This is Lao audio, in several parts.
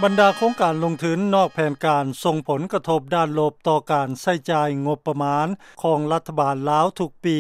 ບັນດາໂຄງການລົງທຶນນອກແຜນການ ສົ່ງຜົນກະທົບດ້ານລົບຕໍ່ການໃຊ້ຈ່າຍງົບປະມານ ຂອງລັດຖະບານລາວທຸກປີ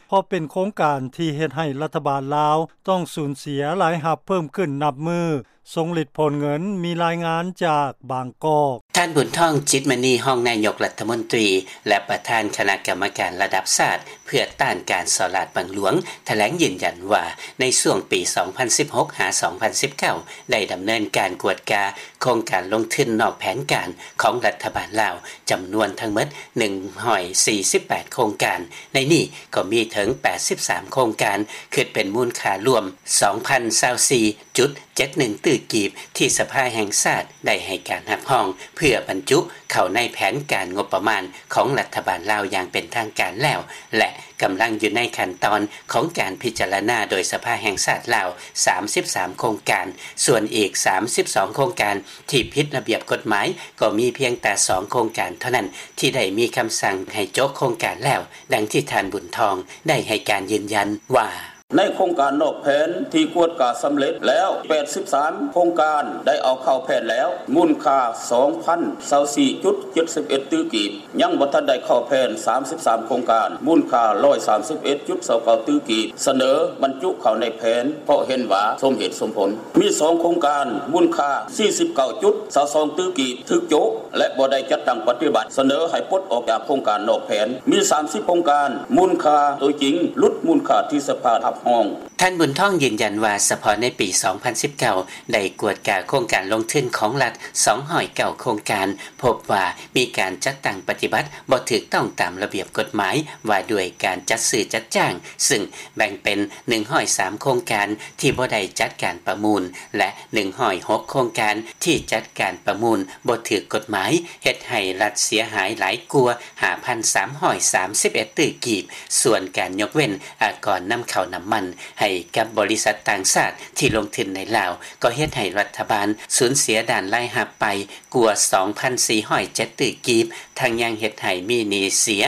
ເພາະເປັນໂຄງການທີ່ເຮັດໃຫ້ລັດຖະບານລາວ ຕ້ອງສູນເສຍລາຍຮັບເພີ່ມຂຶ້ນນັບມື້ ຊົງລິດຜົນເງິນ. ມີລາຍງານຈາກບາງກອກ. ທ່ານ ບຸນທອງ ຈິດມະນີ ຮອງນາຍົກລັດຖະມົນຕີ ແລະ ປະທານຄະນະກຳມະການລະດັບຊາດ ເພື່ອຕ້ານການສໍ້ລາດບັງຫຼວງ ຖະແຫຼງຢືນຢັນວ່າ ໃນຊ່ວງປີ ສອງພັນສິບຫົກ ຫາ ສອງພັນສິບເກົ້າ ໄດ້ດຳເນີນການກວດກາໂຄງການລົງທຶນນອກແຜນການ ຂອງລັດຖະບານລາວ ຈຳນວນທັງໝົດ ໜຶ່ງຮ້ອຍສີ່ສິບແປດ ໂຄງການ. ໃນນີ້ກໍມີເຖິງ ແປດສິບສາມ ໂຄງການ ຄິດເປັນມູນຄ່າລວມ ສອງພັນຊາວສີ່ຈຸດເຈັດໜຶ່ງ ຕື້ກີບ ທີ່ສະພາແຫ່ງຊາດ ໄດ້ໃຫ້ການຮັບຮອງ ເພື່ອບັນຈຸເຂົ້າໃນແຜນການງົບປະມານ ຂອງລັດຖະບານລາວຢ່າງເປັນທາງການແລ້ວ ແລະ ກຳລັງຢູ່ໃນຂັ້ນຕອນຂອງການພິຈາລະນາໂດຍສະພາແຫ່ງຊາດລາວ ສາມສິບສາມ ໂຄງການ. ສ່ວນອີກ ສາມສິບສອງ ໂຄງການ ທີ່ຜິດລະບຽບກົດໝາຍ ກໍມີພຽງແຕ່ ສອງ ໂຄງການເທົ່ານັ້ນ ທີ່ໄດ້ມີຄຳສັ່ງໃຫ້ໂຈະໂຄງການແລ້ວ, ດັ່ງທີ່ທ່ານ ບຸນທອງ ໄດ້ໃຫ້ການຢືນຢັນວ່າ: ໃນໂຄງການນອກແຜນທີ່ກວດກາສຳເລັດແລ້ວ ແປດສິບສາມ ໂຄງການ ໄດ້ເອົາເຂົ້າແຜນແລ້ວ ມູນຄ່າ ສອງພັນຊາວສີ່ຈຸດເຈັດສິບເອັດ ຕື້ກີບ. ຍັງບໍ່ທັນໄດ້ເຂົ້າແຜນ ສາມສິບສາມ ໂຄງການ ມູນຄ່າ ຮ້ອຍສາມສິບເອັດຈຸດຊາວເກົ້າ ຕື້ກີບ ສະເໜີບັນຈຸເຂົ້າໃນແຜນ ເພາະເຫັນວ່າສົມເຫດສົມຜົນ. ມີ ສອງ ໂຄງການ ມູນຄ່າ ສີ່ສິບເກົ້າຈຸດຊາວສອງ ຕື້ກີບ ຖືກໂຈະ ແລະ ບໍ່ໄດ້ຈັດຕັ້ງປະຕິບັດ ສະເໜີໃຫ້ປົດອອກຈາກໂຄງການນອກແຜນ. ມີ ສາມສິບ ໂຄງການ ມູນຄ່າໂຕຈິງ ຫຼຸດມູນຄ່າທີ່ສະພາຮັບຮອງ. ທ່ານ ບຸນທອງ ຢືນຢັນວ່າ ສະເພາະໃນປີ ສອງພັນສິບເກົ້າ ໄດ້ກວດກາໂຄງການລົງທຶນຂອງລັດ ສອງຮ້ອຍເກົ້າ ໂຄງການ ພົບວ່າມີການຈັດຕັ້ງປະຕິບັດບໍ່ຖືກຕ້ອງຕາມລະບຽບກົດໝາຍວ່າດ້ວຍການຈັດຊື້ຈັດຈ້າງ, ຊຶ່ງແບ່ງເປັນ ໜຶ່ງຮ້ອຍສາມ ໂຄງການທີ່ບໍ່ໄດ້ຈັດການປະມູນ ແລະ ໜຶ່ງຮ້ອຍຫົກ ໂຄງການທີ່ຈັດການປະມູນບໍ່ຖືກກົດໝາຍ, ເຮັດໃຫ້ລັດເສຍຫາຍຫຼາຍກວ່າ ຫ້າພັນສາມຮ້ອຍສາມສິບເອັດ ຕື້ກີບ. ສ່ວນການຍົກເວັ້ນອາກອນນຳເຂົ້ານ້ຳມັນໃຫ້ກັບບໍລິສັດຕ່າງຊາດທີ່ລົງທຶນໃນລາວ ກໍເຮັດໃຫ້ລັດຖະບານສູນເສຍດ້ານລາຍຮັບໄປກວ່າ ສອງພັນສີ່ຮ້ອຍເຈັດ ຕື້ກີບ, ທັງຍັງເຮັດໃຫ້ມີໜີ້ເສຍ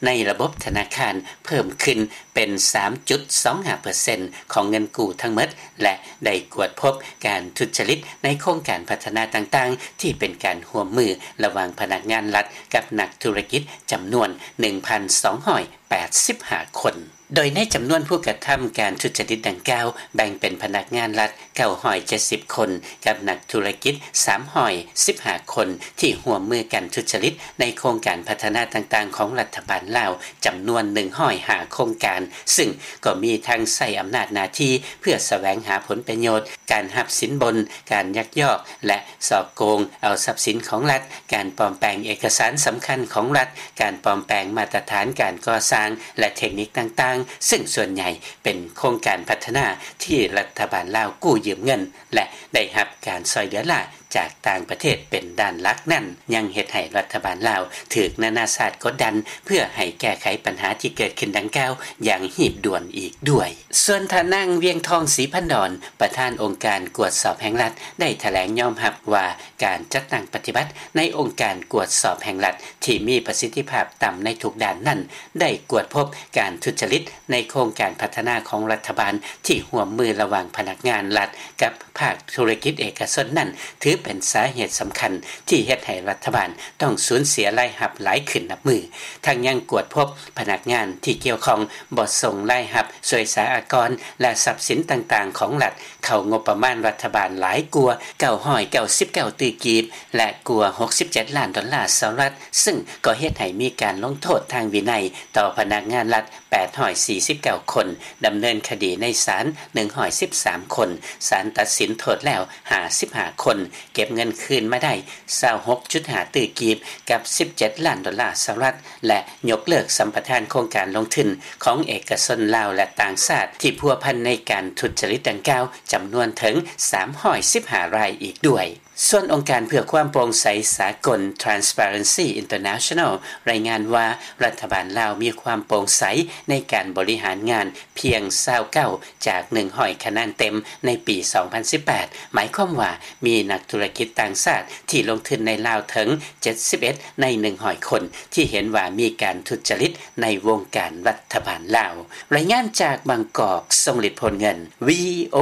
ໃນລະບົບທະນາຄານເພີ່ມຂຶ້ນເປັນ ສາມຈຸດສອງຫ້າເປີເຊັນ ຂອງເງິນກູ້ທັງໝົດ ແລະ ໄດ້ກວດພົບການທຸດຈະລິດໃນໂຄງການພັດທະນາຕ່າງໆ ທີ່ເປັນການຮ່ວມມືລະຫວ່າງພະນັກງານລັດກັບນັກທຸລະກິດ ຈຳນວນ ໜຶ່ງພັນສອງຮ້ອຍແປດສິບຫ້າ ຄົນ. ໂດຍໃນຈຳນວນຜູ້ກະທຳການທຸດຈະລິດດັ່ງກ່າວ ແບ່ງເປັນພະນັກງານລັດ ເກົ້າຮ້ອຍເຈັດສິບ ຄົນ ກັບນັກທຸລະກິດ ສາມຮ້ອຍສິບຫ້າ ຄົນ ທີ່ຮ່ວມມືກັນທຸດຈະລິດໃນໂຄງການພັດທະນາຕ່າງໆຂອງລັດຖະບານລາວ ຈຳນວນ ໜຶ່ງຮ້ອຍຫ້າ ໂຄງການ, ຊຶ່ງກໍມີທັງໃຊ້ອຳນາດໜ້າທີ່ເພື່ອສະແຫວງຫາຜົນປະໂຫຍດ, ການຮັບສິນບົນ, ການຍັກຍອກ ແລະ ສໍ້ໂກງເອົາຊັບສິນຂອງລັດ, ການປອມແປງເອກະສານສຳຄັນຂອງລັດ, ການປອມແປງມາດຕະຖານການກໍ່ສ້າງ ແລະ ເທັກນິກຕ່າງໆ, ຊຶ່ງສ່ວນໃຫຍ່ເປັນໂຄງການພັດທະນາທີ່ລັດຖະບານລາວກູ້ຢືມເງິນ ແລະ ໄດ້ຮັບການຊ່ອຍເຫຼືອລ້າຈາກຕ່າງປະເທດເປັນດ້ານຫຼັກນັ້ນ ຍັງເຮັດໃຫ້ລັດຖະບານລາວຖືກນານາຊາດກົດດັນ ເພື່ອໃຫ້ແກ້ໄຂບັນຫາທີ່ເກີດຂຶ້ນດັ່ງກ່າວຢ່າງຮີບດ່ວນອີກດ້ວຍ. ສ່ວນທ່ານນາງ ວຽງທອງ ສີພັນດອນ ປະທານອົງການກວດສອບແຫ່ງລັດ ໄດ້ຖະແຫຼງຍອມຮັບວ່າ ການຈັດຕັ້ງປະຕິບັດໃນອົງການກວດສອບແຫ່ງລັດທີ່ມີປະສິດທິພາບຕ່ຳໃນທຸກດ້ານນັ້ນ ໄດ້ກວດພົບການທຸດຈະລິດໃນໂຄງການພັດທະນາຂອງລັດຖະບານທີ່ຮ່ວມມືລະຫວ່າງພະນັກງານລັດກັບພາກທຸລະກິດເອກະຊົນນັ້ນ ຖືເປັນສາເຫດສຳຄັນທີ່ເຮັດໃຫ້ລັດຖະບານຕ້ອງສູນເສຍລາຍຮັບຫຼາຍຂຶ້ນນັບມື້. ທັງຍັງກວດພົບພະນັກງານທີ່ກ່ຽວຂ້ອງບໍ່ສົ່ງລາຍຮັບສ່ວຍສາອາກອນ ແລະ ຊັບສິນຕ່າງໆຂອງລັດ ເຂົ້າງົບປະມານລັດຖະບານຫຼາຍກວ່າ ເກົ້າຮ້ອຍເກົ້າສິບເກົ້າ ຕື້ກີບ ແລະ ກວ່າ ຫົກສິບເຈັດ ລ້ານດອນລາສະຫະລັດ, ຊຶ່ງກໍເຮັດໃຫ້ມີການລົງໂທດທາງວິໄນຕໍ່ພະນັກງານລັດ ແປດຮ້ອຍສີ່ສິບເກົ້າ ຄົນ, ດຳເນີນຄະດີໃນສານ ໜຶ່ງຮ້ອຍສິບສາມ ຄົນ, ສານຕັດສິນໂທດແລ້ວ ຫ້າສິບຫ້າ ຄົນ, ເກັບເງິນຄືນມາໄດ້ ຊາວຫົກຈຸດຫ້າ ຕື້ກີບ ກັບ ສິບເຈັດ ລ້ານດອນລາສະຫະລັດ ແລະ ຍົກເລີກສຳປະທານໂຄງການລົງທຶນຂອງເອກະຊົນລາວ ແລະ ຕ່າງຊາດທີ່ພົວພັນໃນການທຸດຈະລິດດັ່ງກ່າວ ຈຳນວນເຖິງ ສາມຮ້ອຍສິບຫ້າ ລາຍອີກດ້ວຍ. ສ່ວນອົງການເພື່ອຄວາມໂປ່ງໃສສາກົນ Transparency International ລາຍງານວ່າ ລັດຖະບານລາວມີຄວາມໂປ່ງໃສໃນການບໍລິຫານງານພຽງ ຊາວເກົ້າ ຈາກ ໜຶ່ງຮ້ອຍ ຄະແນນເຕັມໃນປີ ສອງພັນສິບແປດ ໝາຍຄວາມວ່າມີນັກທຸລະກິດຕ່າງຊາດທີ່ລົງທຶນໃນລາວເຖິງ ເຈັດສິບເອັດ ໃນ ໜຶ່ງຮ້ອຍ ຄົນ ທີ່ເຫັນວ່າມີການທຸດຈະລິດໃນວົງການລັດຖະບານລາວ. ລາຍງານຈາກບາງກອກ ຊົງລິດ ໂພນເງິນ ວີໂອ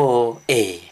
ເອ.